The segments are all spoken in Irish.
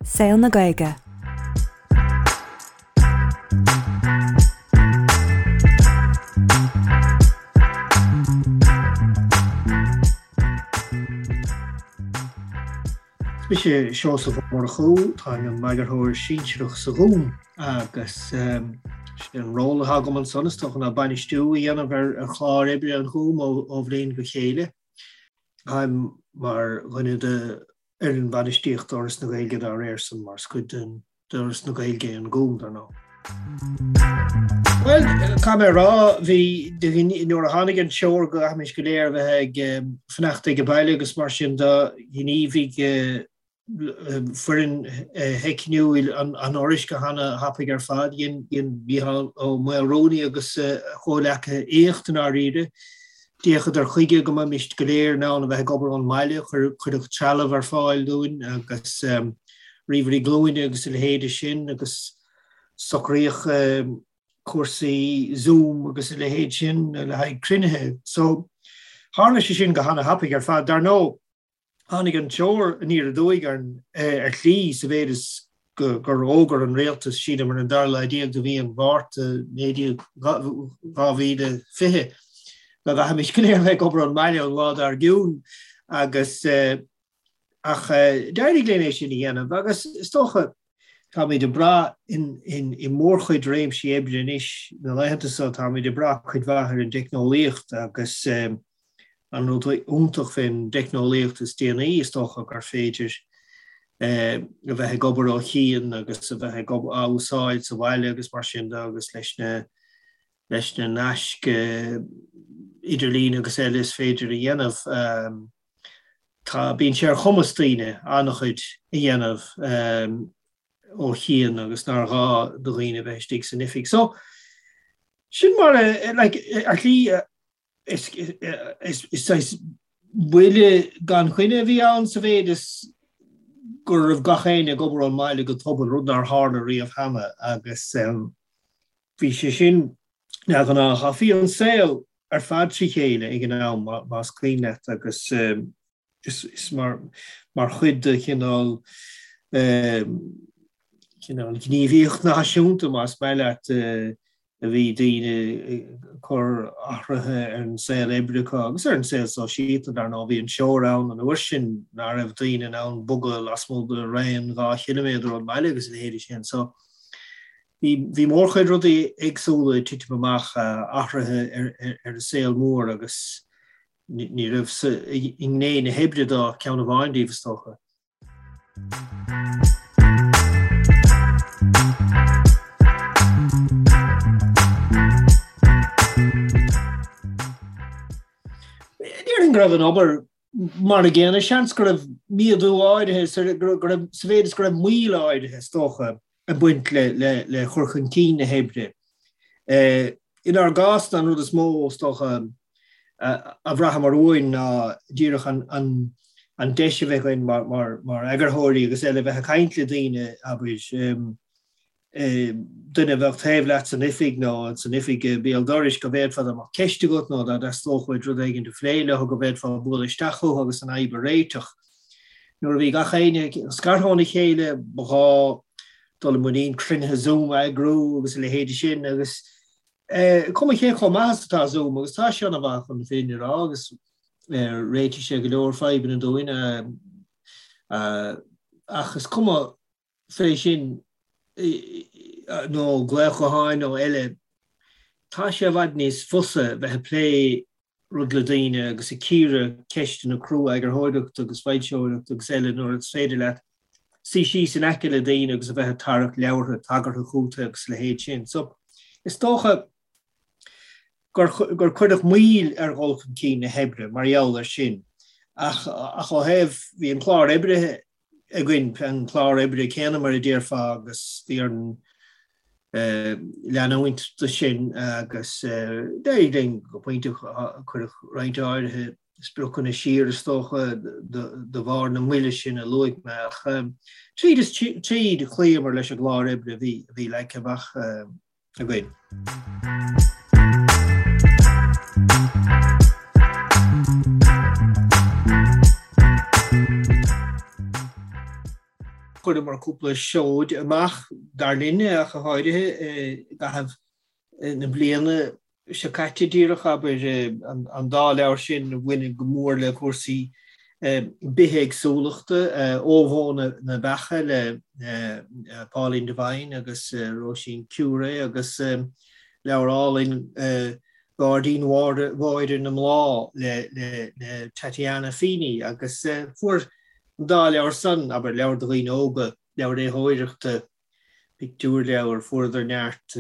Saol na Gaeilge. Is mise Seosamh Ó Murchú, táim i m'eagarthóir sinsearach sa Ghúm agus sé an ról atá agam ansan is dócha ná bainistiú a dhéanamh ar chlár oibre an Ghúim ó bhliain go chéile. Táim mar dhuine de fhoireann bainistíochta Fhoras na Gaeilge dá réir san, mar is cuid den d'Fhoras na Gaeilge é an Gúm, dar ndóigh. Bhuel, caithfidh mé a rá, bhí, nuair a tháinig an treoir go gcaithfimis go léir a bheith ag fanacht ag baile agus mar sin de, ghníomhaigh foireann theicniúil an Fhorais go hana-thapaidh ar fad. Dhein Mícheál Ó Maolrúnaí agus a chomhleacaithe éacht i ndáiríre. D'fhéachadar chuige go mbeimis go léir in ann a bheith ag obair ón mbaile, cuireadh trealamh ar fáil dúinn agus ríomhairí glúine agus a leithéide sin agus socraíodh cúrsaí Zoom agus a leithéid sin le haghaidh cruinnithe. So, tharla sé sin go hana-thapaidh ar fad. Dar ndóigh, Tháinig an treoir aniar aduaidh orainn ar shlí sa mhéid is gur fhógair an rialtas, sílim ar an dara lá déag de mhí an Mhárta 2020, go gcaithfimis go léir a bheith ag obair ón mbaile an lá dár gcionn agus ach d'éirigh linn é sin a dhéanamh agus is dócha Táimid ag brath i mórchuid réimsí oibre anois na laethanta seo, táimid ag brath cuid mhaith ar an dteicneolaíocht agus an rud iontach fén dteicneolaíocht is déanaí is dócha gur féidir a bheith ag obair ó chian agus a bheith ag á úsáid sa bhaile agus mar sin de agus leis na leis na naisc idirlín agus eile is féidir a dhéanamh. Tá, bíonn sé ar chumas daoine an-chuid a dhéanamh ó chian agus nár ghá do dhaoine a bheith istigh san oifig. So, sin mar a, like, ar shlí, is, is, is saghas buille gan choinne a bhí ann sa mhéid is go raibh gach éinne ag obair ón mbaile go tobann, rud nár tharla riamh cheana agus bhí sé sin neamhghnách. Ach bhí an saol ar fad trí chéile ag an am, más cuimhin leat, agus is mar chuid de chineál cineál gníomhaíocht náisiúnta, más maith leat, a bhí daoine ag cur athruithe ar an saol oibre acu agus ar an saol sóisialta, dar ndóigh. Bhí an treoir ann an uair sin nach raibh daoine in ann bogadh lasmuigh de raon 2 chiliméadar ón mbaile agus a leithéidí sin. So, Bhí mórchuid rudaí éagsúla ag titim amach, athruithe ar an saol mór agus ní raibh i ngné na hoibre de ach ceann amháin díobh, is dócha. Déarfainn go raibh an obair mar a gcéanna, seans go raibh méadú áirithe, sa mhéid is go raibh moill áirithe, is dócha, ag baint le cur chun cinn na hoibre. Inár gcás, an rud is mó, is dócha, a bhraitheamar uainn ná díreach an deis a bheith againn mar eagarthóirí agus eile bheith ag caint le daoine, abair, duine a bheadh taobh leat san oifig nó san oifig béal dorais go bhféadfá dá mbeadh ceist agat nó dá dteastódh uait rud éigin a phlé leo go bhféadfá bualadh isteach chucu agus an fhadhb a réiteach. Nuair a bhí gach éinne scartha óna chéile ba ghá dul i muinín cruinnithe Zoom a eagrú agus a leithéide sin agus cuma cé chomh maith is atá Zoom agus tá sé ana-mhaith chun na fírinne a rá agus réitigh sé go leor fadhbanna dúinn ach is cuma fé sin nó glaoch gutháin nó eile, tá sé i bhfad níos fusa bheith ag plé rud le daoine agus ag cíoradh ceisteanna crua eagarthóireachta agus foilsitheoireachta agus eile nuair is féidir leat suí síos in aice le daoine agus a bheith ag tarrac leabhartha tagartha chugat agus a leithéid sin. So, is dócha gur cuireadh moill ar dhul chun cinn na hoibre mar gheall air sin ach ó thaobh, bhí an clár oibre againn an clár oibre céanna mar a déarfá agus bhí orainn leanúint de sin agus d'éirigh linn go pointe cuireadh roinnt áirithe spriocanna siar is dócha de bharr na moille sin a luaigh mé ach tríd is tríd chloíomar leis an gclár oibre a bhí leagtha amach againn. Chuireamar cúpla seoid amach, dar linne ach go háirithe, i gcaitheamh na bliana seo caite díreach, abair, an dá leabhar sin a bhaineann go mór le cúrsaí bithéagsúlachta, Ó Bhó na Beacha le Pauline Devine agus Róisín Curé agus leabhar álainn Gairdín Mháire na mBláth le Tatiana Feeney agus fuair an dá leabhar san, abair, leabhar do dhaoine óga, leabhar léitheoireachta, pictiúrleabhar, fuaireadar neart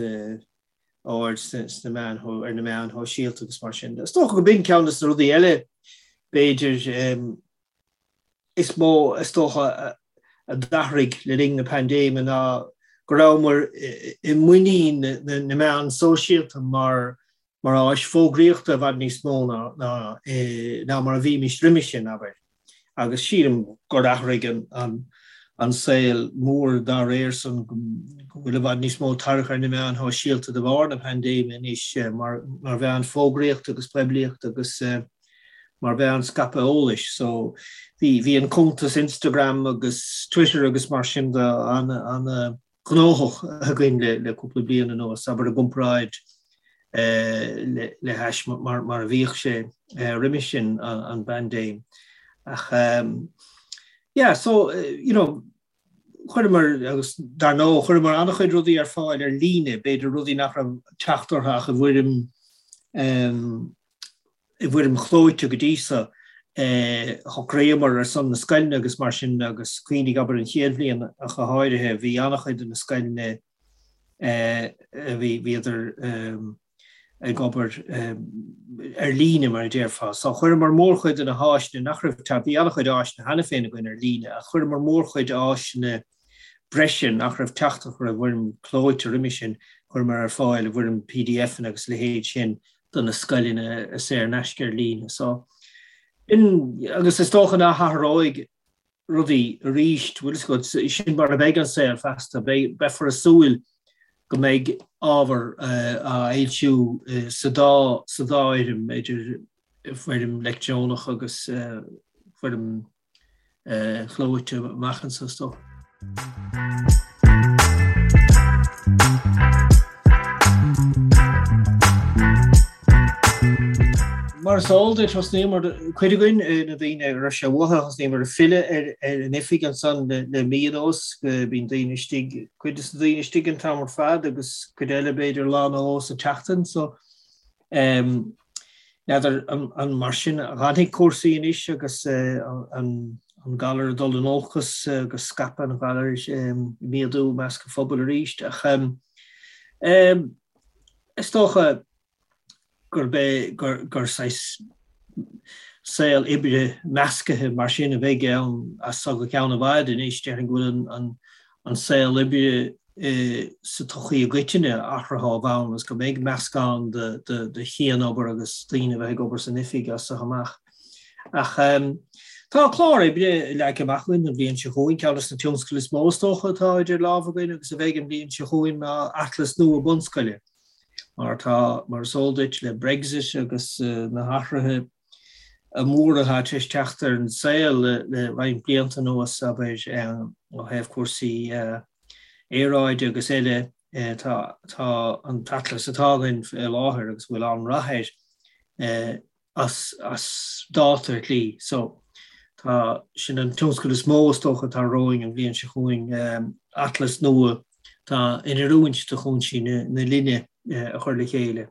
aird sna meáin, ar na meáin shóisialta agus mar sin de. Is dócha go b'in ceann de na rudaí eile, b'fhéidir, is mó is dócha a d'athraigh le linn na paindéime ná go rabhamar i muinín na meán sóisialta mar mar áis fógraíochta i bhfad níos mó ná ná mar a bhímis roimhe sin, abair. Agus sílim gur athraigh an saol mór dá réir san, go bhfuil i bhfad níos mó tarrac ar na meáin shóisialta de bharr na paindéime anois mar mheán fógraíochta agus poiblíochta agus mar mheán scaipthe eolais. So bhí bhí an cuntas Instagram agus Twitter agus mar sin de an gnóthach againn le cúpla bliain anuas, abair i gcomparáid le hais mar a bhíodh sé roimhe sin an bpaindéim. Ach yeah, so you know, chuireamar, agus dar ndóigh, chuireamar an-chuid rudaí ar fáil ar líne, b'fhéidir rudaí nach raibh teacht orthu ach i bhfoirm i bhfoirm chlóite go dtí so. Shocraíomar ar son na scoileanna agus mar sin agus cuimhnigh, abair, an chéad bhliain ach go háirithe, bhí an-chuid de na scoileanna a bhí, bhíodar ag obair ar líne mar a déarfá. So chuireamar mórchuid de na háiseanna nach raibh, bhí an-chuid áiseanna cheana féin againn ar líne ach chuireamar mórchuid áiseanna breise nach raibh teacht orthu i bhfoirm clóite roimhe sin, chuireamar ar fáil i bhfoirm PDFanna agus a leithéid sin do na scoileanna saor in aisce ar líne. So, in, agus is dócha nach athróidh rudaí arís, bhfuil fhios agat, sin mar a bheidh an saol feasta, beifear ag súil go mbeidh ábhar á fhoilsiú sa dá sa dá fhoirm, idir foirm leictreonach agus foirm chlóite amach anseo is dócha. Mar is eol duit, thosnaíomar, cuid againn, na daoine a raibh sé uathu, thosnaíomar ag filleadh ar an oifig ansan le mí anuas. Bíonn daoine istigh, cuid de na daoine istigh an t-am ar fad agus cuid eile b'fhéidir lá nó dhó sa tseachtain. So, N'fheadar an mar sin a dh'fhanfaidh cúrsaí anois agus an galar ag dul in olcas agus scaipeadh an ghalair ag méadú i measc an phobail arís. Ach is dócha gurb é gur saghas saol oibre meascaithe mar sin a bheidh ann as so go ceann i bhfad anois. Déarfainn go bhfuil an saol oibre sa tsochaí i gcoitinne athraithe ó bhonn agus go mbeidh meascán de chianobair agus daoine a bheith ag obair san oifig as so amach. Ach tá clár oibre leagtha amach againn don bhliain seo chugainn, ceann de na tionscadail is mó is dócha atá idir lámha againn agus a bheidh an bhliain seo chugainn ná atlas nua bunscoile. Mar tá, mar is eol duit, le Brexit agus na hathruithe móra atá tar éis teacht ar an saol le roinnt blianta anuas, abair, ó thaobh cúrsaí aeráide agus eile, tá an t-atlas atá againn faoi láthair agus a bhfuil an-rath air as dáta ar shlí. So, tá, sin an tionscadal is mó is dócha atá romhainn an bhliain seo chugainn, atlas nua atá in oiriúint do chúinsí na linne a chur le chéile.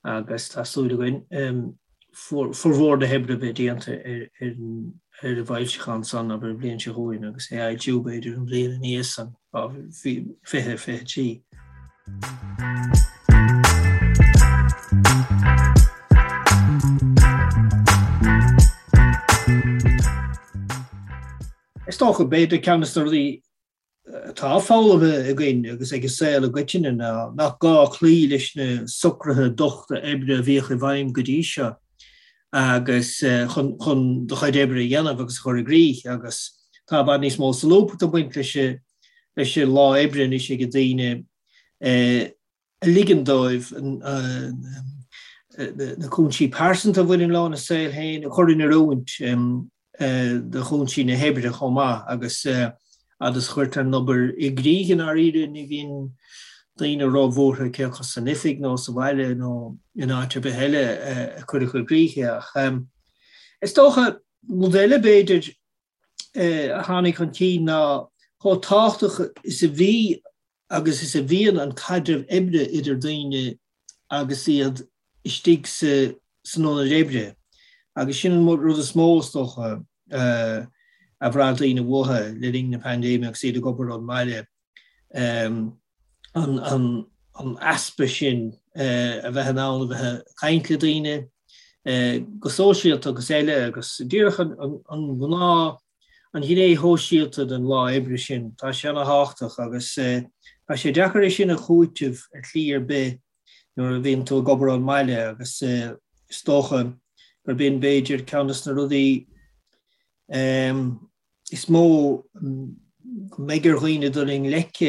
agus tá súil againn formhór na hoibre a bheith déanta ar an bhfoilseachán san, abair, an bhliain seo chugainn agus é a fhoilsiú, b'fhéidir, an bhliain ina dhiaidh san, 2023. Is dócha, b'fhéidir, ceann de na rudaí atá foghlamtha againn agus ag an saol i gcoitinne ná nach gá cloí leis na socruithe dochta oibre a bhíodh i bhfeidhm go dtí seo agus chun chun do chuid oibre a dhéanamh agus a chur i gcrích agus tá i bhfad níos mó solúbthachta ag baint leis leis an lá oibre anois ag daoine a ligeann dóibh na cúinsí pearsanta a bhaineann leo ina saol féin a chur in oiriúint do chúinsí na hoibre chomh maith agus. Fhad is a chuirtear an obair i gcrích i ndáiríre ní bhíonn daoine róbhuartha cé acu san oifig nó sa bhaile nó in áit ar bith eile a cuireadh i gcrích é. Ach is dócha, rud eile b'fhéidir a tháinig chun cinn ná chomh tábhachtach is a bhí agus is a bhíonn an caidreamh oibre idir daoine agus iad istigh san ionad oibre. Agus sin an rud is mó, is dócha, a bhraith daoine uathu le linn na paindéime agus iad ag obair ón mbaile, an easpa sin a bheith in ann a bheith ag caint le daoine go sóisialta agus eile agus díreach an ghnáth an ghné shóisialta den lá oibre sin, tá sé ana-thábhachtach agus tá sé deacair é sin a chúiteamh ar shlí ar bith nuair a bhíonn tú ag obair ón mbaile agus is dócha gurb in b'fhéidir ceann de na rudaí is mó go mbeidh ar dhaoine dul i ngleic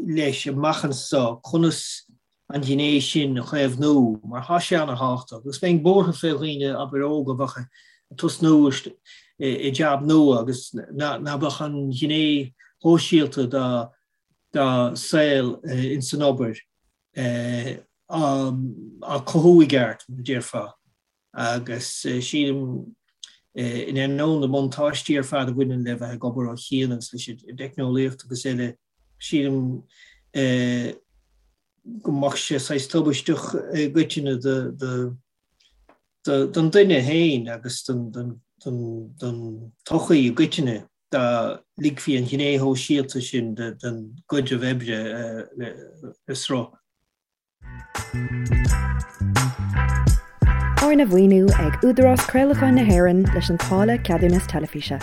leis amach anseo, conas an ghné sin a chaomhnú mar tá sé ana-thábhachtach agus bheinn buartha fé dhaoine abair óga a bheadh ag tosnú i jab nua agus ná beadh an ghné shóisialta dá dá saol ins an obair á cothú i gceart, mar a déarfá, agus sílim, in ainneoin na mbuntáistí ar fad a bhaineann le bheith ag obair ó chian agus leis an dteicneolaíocht agus eile, sílim go mbeadh sé saghas tubaisteach i gcoitinne do don duine féin agus don tsochaí i gcoitinne dá ligfí an ghné shóisialta sin den gcaidreamh oibre le sruth. Arna mhaoiniú ag Údarás Craolacháin na hÉireann leis an táille Ceadúnas Teilifíse.